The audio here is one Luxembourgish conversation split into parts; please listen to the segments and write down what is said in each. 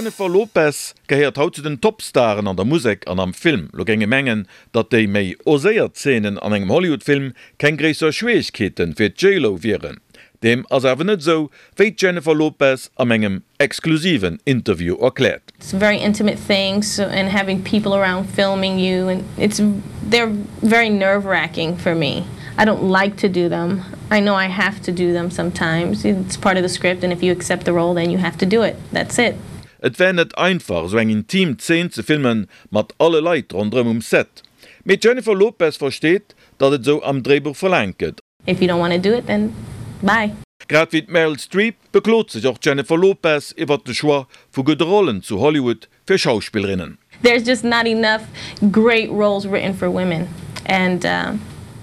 D'Jennifer Lopez gehéiert haut zu den Topstaren an der Musek an am Film. Lo géing ee mengen, datt déi méi oséiert Zeenen an engem Hollywood-Film keng gréisser Schwieregkeete fir d'J-Lo wieren. Deem ass awer net esou, wéi d'Jennifer Lopez am engem exklusiven Interview erkläert. It's very intimate things and having people around filming you and it's they're very nerve wracking for me. I don't like to do them. I know I have to do them sometimes, it's part of the script and if you accept the role then you have to do it, that's it. Et wär net einfach esou eng intim Zeen ze filmen mat alle Leit ronderëm um Set. Mee d'Jennifer Lopez versteet, datt et esou am Dréibuch verlaangt gëtt. If you don't wanna do it then bye. Grad wéi d'Meryl Streep beklot sech och d'Jennifer Lopez iwwert de Choix vu gudde Rollen zu Hollywood fir Schauspillerinnen. There's just not enough great roles written for women and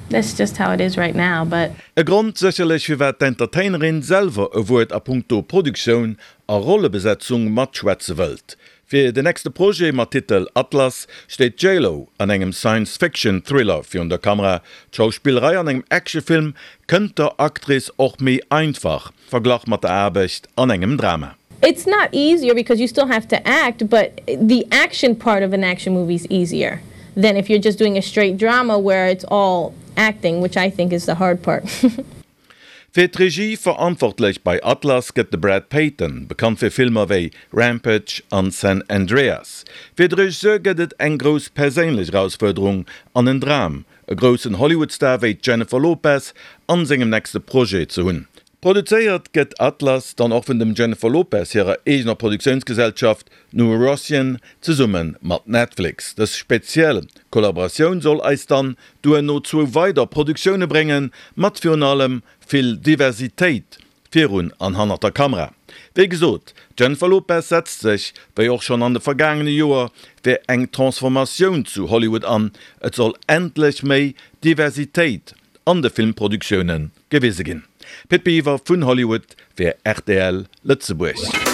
that's just how it is right now but. E Grond sécherlech firwat d'Entertainerin selwer e Wuert a punkto Produktioun a Rollebesetzung matschwätze wëllt. Fir den nächste Projet mat Titel Atlas steet d'J-Lo an engem Science-Fiction-Thriller virun der Kamera. D'Schauspillerei an engem Actionfilm kënnt der Actrice och méi einfach, verglach mat der Aarbecht an engem Drama. It's not easier because you still have to act, but the action part of an action movie is easier than if you're just doing a straight drama where it's all acting, which I think is the hard part. Fir d'Regie verantwortlech bei Atlas gëtt de Brad Peyton, bekannt fir Filmer wéi Rampage an San Andreas. Fir de Regisseur gëtt et eng grouss perséinlech Erausfuerderung an en Dram, e groussen Hollywood-Star wéi d'Jennifer Lopez an sengem nächste Projet ze hunn. Produzéiert gëtt Atlas dann och vun dem Jennifer Lopez hirer eegener Produktiounsgesellschaft New Rossian zesumme mat Netflix. Dës speziell Kollaboratioun soll eis dann duerno zwou weider Produktioune bréngen, mat virun allem vill Diversitéit virun an hannert der Kamera. Wéi gesot, d'Jennifer Lopez setzt sech, wéi och schonn an de vergaangene Joer, fir eng Transformatioun zu Hollywood an, et soll endlech méi Diversitéit an de Filmproduktioune gewise ginn. Pit Biwer vun Hollywood fir rtl Lëtzebuerg.